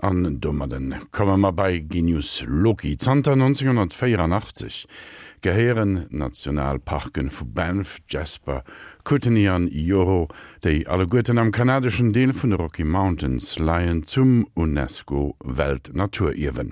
An domadden komme mer bei Genius Loci. Zanter 1984 gehéieren d'Nationalparken vu Banff, Jasper, Kootenay an Yoho, déi alleguerten am kanadeschen Deel vun de Rocky Mountains leien, zum UNESCO-Weltnaturierwen.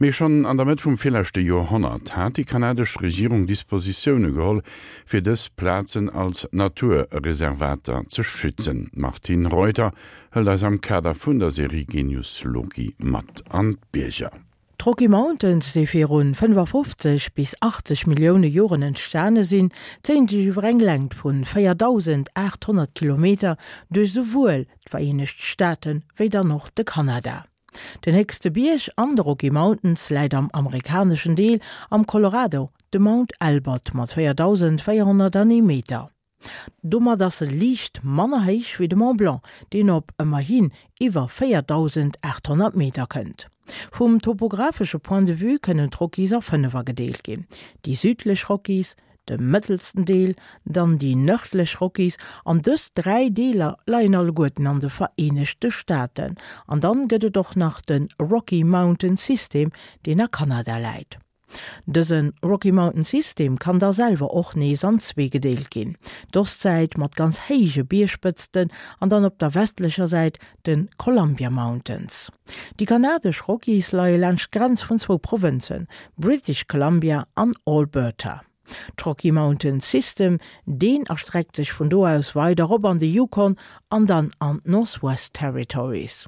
Mee schonn an der Mëtt vum virleschte Joerhonnert hat déi kanadesch Regierung Dispositioune geholl, fir dës Plazen als Naturreservater ze schützen. D'Martine Reuter hëlt eis am Kader vun der Serie Genius Loci mat an d'Bierger. D'Rocky Mountains, déi virun 55 bis 80 Millioune Joren entstane sinn, zéien sech iwwer eng Längt vun 4.800 Kilometer duerch souwuel d'Vereenegt Staaten wéi dann och de Kanada. Den héchste Bierg an de Rocky Mountains läit am amerikaneschen Deel am Colorado, de Mount Elbert mat 4.401 Meter. Domat ass e liicht manner héich wéi de Mont Blanc, deen op ëmmerhin iwwer 4.800 Meter kënnt. Vum topographesche Point de vue kënnen d'Rockies a 5 agedeelt ginn, déi südlech Rockies, de mëttelsten Deel, dann déi nërdlech Rockies, an dës 3 Deeler leien alleguerten an de Vereenegte Staaten. An dann gëtt et och nach de Rocky Mountain System, deen a Kanada läit. Dëse Rocky Mountain System kann da selwer och nees an zwee gedeelt ginn, d'Ostsäit mat ganz héije Biergspëtzten an dann op der westlecher Säit de Columbia Mountains. Déi kanadesch Rockies leie laanscht d'Grenz vun zwou Provënzen, British Columbia an Alberta. D'Rocky Mountain System, deen erstreckt sech vun do aus weider rop an de Yukon an dann an d'Northwest Territories.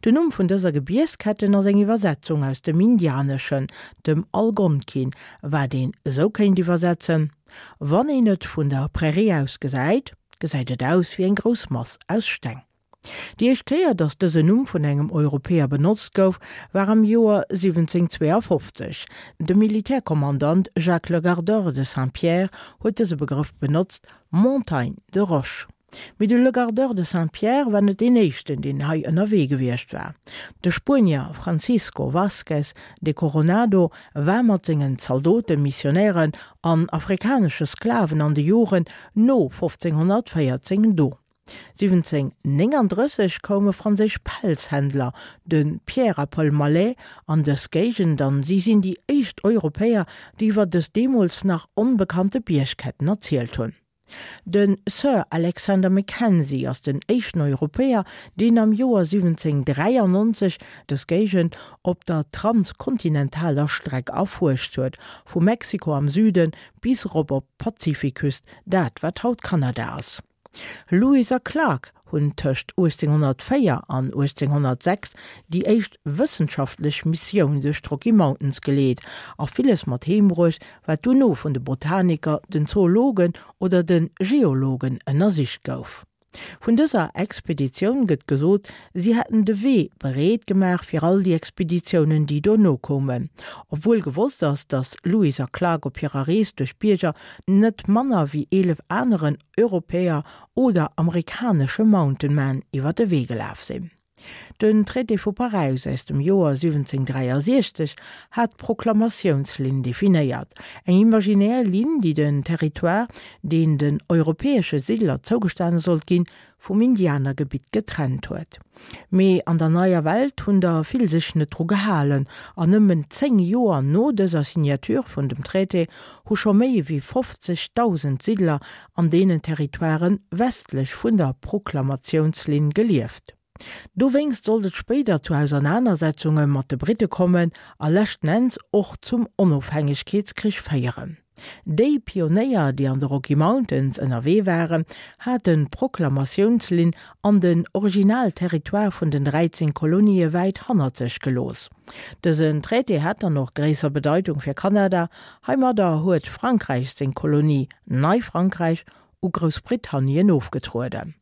Den Numm vun dëser Gebiergsketten ass eng Iwwersetzung aus dem Indianeschen, dem Algonkin, wat een esou kéint iwwersetzen, Wann een et vun der Prärie aus gesäit, gesäit et aus wéi eng grouss Mass aus Steng. Déi éischt Kéier, datt dësen Numm vun engem Europäer benotzt gouf, war am Joer 1752. De Militärkommandant Jacques Legardeur de Saint-Pierre huet dëse Begrëff benotzt, Montagne de roches. Mee de Legardeur de Saint-Pierre war net deen éischten, deen hei ënnerwee gewiescht war. De Spuenier Francisco Vázquez de Coronado war mat sengen Zaldoten, Missionären an afrikanesche Sklaven an de Joren no 1514 do. 1739 koume franséisch Pelzhändler, de Pierre a Paul Mallet, an dës Géigend an si sinn déi éischt Europäer, déi iwwer dës deemools nach onbekannte Biergketten erzielt hunn. De Sir Alexander Mackenzie ass den éischten Europäer, deen am Joer 1793 dës Géigend op der transkontinentaler Streck erfuerscht huet, vu Mexiko am Süde bis erop op d'Pazifikküst, dat wat haut Kanada ass. Lewis a Clark hunn tëscht 1804 an 1806 déi éischt wëssenschaftlech Missioun duerch d'Rocky Mountains geleet a villes mat heem bruecht, wat dono vun de Botaniker, den Zoologen oder de Geologen ënnersicht gouf. Vun dëser Expeditioun gëtt gesot, si hätten de Wee bereet gemaach fir all déi Expeditiounen, déi dono koumen. Obwuel gewosst ass, datt Lewis a Clark op hirer Rees duerch d'Bierger net manner wéi 11 aneren Europäer oder amerikanesche Mountain Men iwwer de Wee gelaf sinn. Den Traité vu Paräis aus dem Joer 1763 hat d'Proklamatiounslinn definéiert, eng imaginär Linn, déi den Territoire, deen den europäesche Siddler zougestane sollt ginn, vum Indianergebitt getrennt huet. Mee an der Neier Welt hunn der vill sech net dru gehalen, an nëmmen 10 Joer no dëser Signature vun dem Traité hu scho méi ewéi 50.000 Siddler an deenen Territoiren westlech vun der Proklamatiounslinn gelieft. Dowéinst sollt et spéider zu Ausernanersetzunge mat de Britte kommen a leschten Enns och zum Onofhängegkeetskrich féieren. Déi Pionéier, déi an de Rocky Mountains ënnerwee waren, haten d'Proklamatiounslinn an den Originalterritoire vun den 13 Kolonië wäit hannert sech gelooss. Dësen Traité hat dann och gréisser Bedeitung fir Kanada. Heimadder huet Frankräich seng Kolonie Neifrankräich u Groussbritannien ofgetrueden.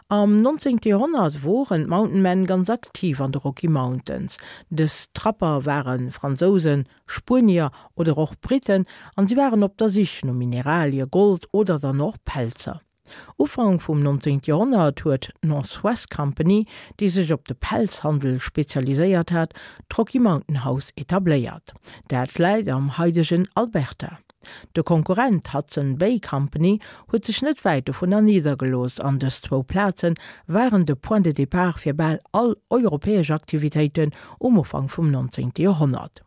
Am 19. Joerhonnert woren d'Mountain Men ganz aktiv an de Rocky Mountains. Dës Trapper ware Fransousen, Spuenier oder och Briten an si waren op der Sich no Mineralie, Gold oder dann och Pelzer. Ufank vum 19. Joerhonnert huet d'North West Company, déi sech op de Pelzhandel spezialiséiert hat, d'Rocky Mountain House etabléiert. Dat läit am haidegen Alberta. De Konkurrent Hudson Bay Company huet sech net wäit dovunner niddergelooss an dës zwou Plaze waren de Point de départ fir bal all europäesch Aktivitéiten um Ufank vum 19. Joerhonnert.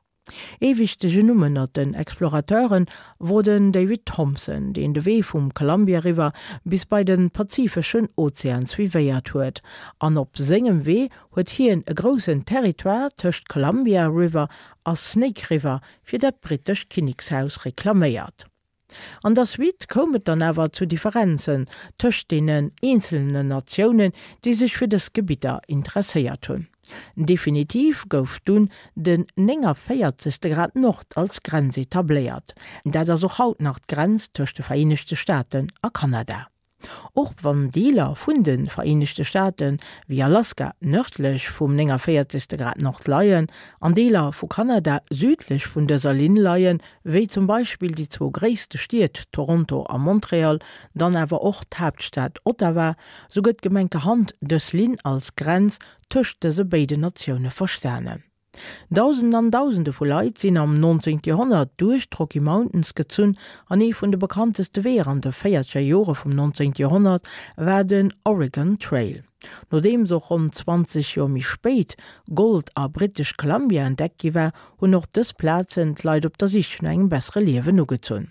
Ee wichtegen Numm ënnert den Explorateure wor den David Thompson, deen de Wee vum Columbia River bis bei de Pazifeschen Ozean suivéiert huet an op sengem Wee huet hien e groussen Territoire tëscht Columbia River a Snake River fir dat brittescht Kinnekshaus reklaméiert. An der Suite koum et dann awer zu Differenzen tëscht deenen eenzelnen Natiounen, déi sech fir dës Gebidder interesséiert hunn. Definitiv gouf dunn den 49. Grad Nord als Grenz etabléiert. Dat ass och haut nach d'Grenz tëscht de Vereenegte Staaten a Kanada. Och wann Deeler vun de Vereenegte Staate wéi Alaska nërdlech vum 49. Grad Nord leien an Deeler vu Kanada südlech vun dëser Linn leien, wéi zum Beispill déi zwou gréisste Stied Toronto a Montreal, dann awer och d'Haaptstad Ottawa, sou gëtt gemenkerhand dës Linn als Grenz tëscht dëse béiden Natioune verstanen. Dausenden an Dausende vu Leit sinn am 19. Joerhonnert duerch d'Rocky Mountains gezunn an ee vun de bekannteste Weeër an de véierzeger Jore vum 19. Joerhonnert war den Oregon Trail. Nodeems och ronn 20 Joer méi spéit Gold a British Columbia entdeckt gi war, hunn och dës Plazen d'Leit op der Sich no engem bessere Liewen ugezunn.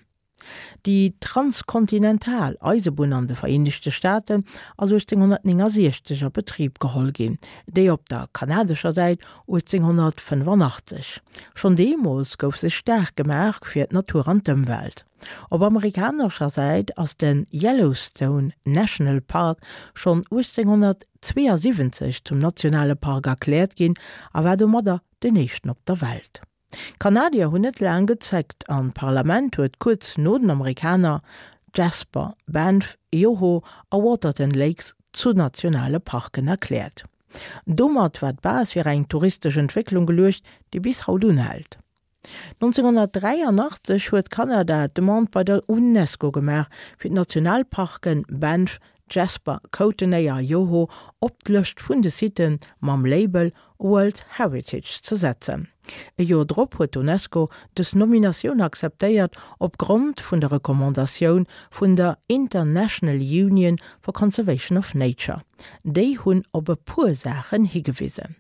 Déi transkontinental Eisebunn an de Vereenegte Staaten ass 1869 a Betrib geholl ginn, déi op der kanadescher Säit 1885. Schonn deemools gouf sech staark gemaach fir d'Natur an d'Ëmwelt. Op amerikanescher Säit ass de Yellowstone National Park schonn 1872 zum nationale Park erkläert ginn a war domadder den éischten op der Welt. D'Kanadier hunn net laang gezéckt an d'Parlament huet kuerz no den Amerikaner Jasper, Banff, Yoho a Waterton Lakes zu nationale Parken erkläert. Domat war d'Base fir eng touristesch Entwécklung geluecht, déi bis haut unhält. 1983 huet Kanada d'Demande bei der Unesco gemaach, fir d'Nationalparken Banff, Jasper, Kootenay a Yoho op d'Lëscht vun de Sitte mam Label World Heritage ze setzen. E Joer drop huet d'UNESCO dës Nominatioun akzeptéiert, op Grond vun der Recommandatioun vun der International Union for Conservation of Nature. Déi hunn op e puer Saachen higewisen.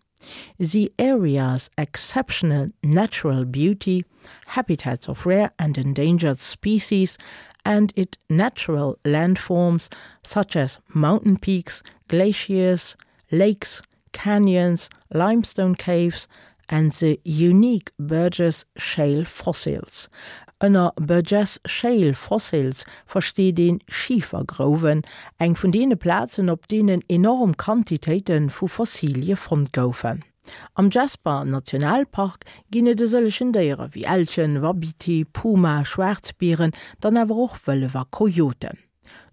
The area's exceptional natural beauty, habitats of rare and endangered species, and its natural landforms such as mountain peaks, glaciers, lakes, canyons, limestone caves and the unique Burgess Shale fossils. Ënner Burgess Shale fossils versteet een Schifergrouwen, eng vun deene Plazen, op deenen enorm Quantitéite vu Fossilie fonnt goufen. Am Jasper Nationalpark ginn et e sëllegen Déiere wéi Elchen, Wapiti, Puma, Schwaarzbieren, dann awer och Wëllef a Kojoten.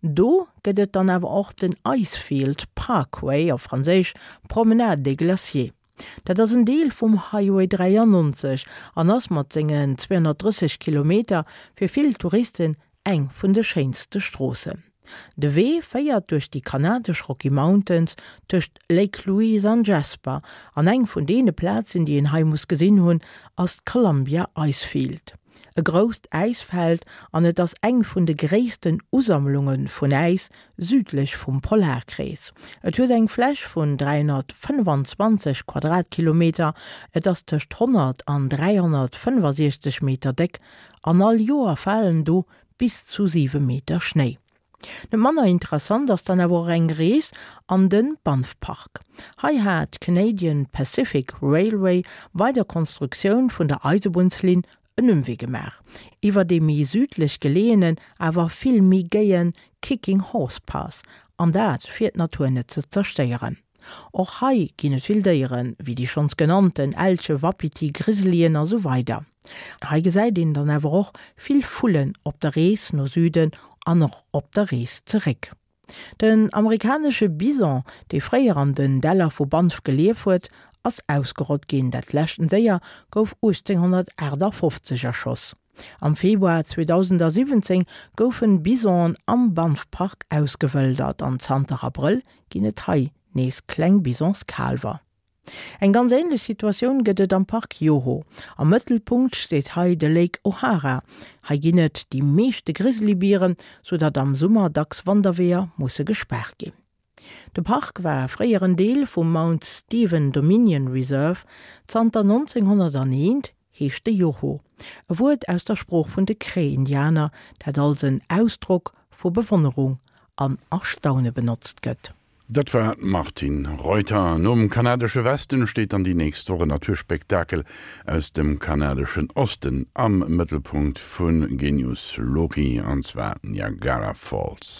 Do gëtt et dann awer och den Icefield Parkway, op Franséisch Promenade des Glaciers. Dat ass en Deel vum Highway 93 an ass mat sengen 230 Kilometer fir vill Touristen eng vun de schéinste Stroossen. De Wee féiert duerch déi kanadesch Rocky Mountains tëscht Lake Louise an Jasper an eng vun deene Plazen, déi een hei muss gesinn hunn, ass d'Columbia Icefield. E grousst Äisfeld an et ass eng vun de gréissten Usammlunge vun Äis südlech vum Polarkrees. Et huet eng Fläch vun 325 Quadratkilometer, et ass tëscht 100 an 365 Meter déck an all Joer falen do bis zu 7 Meter Schnéi. Net manner interessant ass dann awer och eng Rees an den Banff Park. Hei hat d'Canadian Pacific Railway bei der Konstruktioun vun der Eisebunnslinn en Ëmwee gemaach, iwwer dee méi südlech geleeënen, awer vill méi géien Kicking Horse Pass, an dat fir d'Natur net ze zerstéieren. Och hei ginn et vill Déieren, wéi déi schonns genannten Elche, Wapiti, Grizzlyen a sou weider. Hei gesäit een dann awer och vill Vullen op der Rees no Süden an och op der Rees zeréck. Den amerikanesche Bison, dee fréier an den Däller vu Banff gelief huet, ass ausgerott ginn. Dat leschten Déier gouf 1858 erschoss. Am Februar 2017 goufen Bisonen am Banff Park ausgewëldert an zanter Abrëll ginn et hei nees kleng Bisonskaalwer. Eng ganz änlech Situatioun gëtt et am Park Yoho. Am Mëttelpunkt steet hei de Lake O'Hara. Hei ginn et déi meeschte Grizzlybieren, sou datt am Summer dacks Wanderweeër musse gespaart ginn. De Park war fréier en Deel vum Mount Stephen Dominion Reserve. Zanter 1901 heescht de Yoho, e Wuert aus der Sprooch vun de Cree-Indianer, dat als en Ausdrock vu Bewonnerung an Erstaune benotzt gëtt. Dat war d'Martine Reuter. Nom kanadesche Westen steet dann déi nächst Woch en Naturspektakel aus dem kanadeschen Osten am Mëttelpunkt vu Genius Loci, an zwar d'Niagara Falls.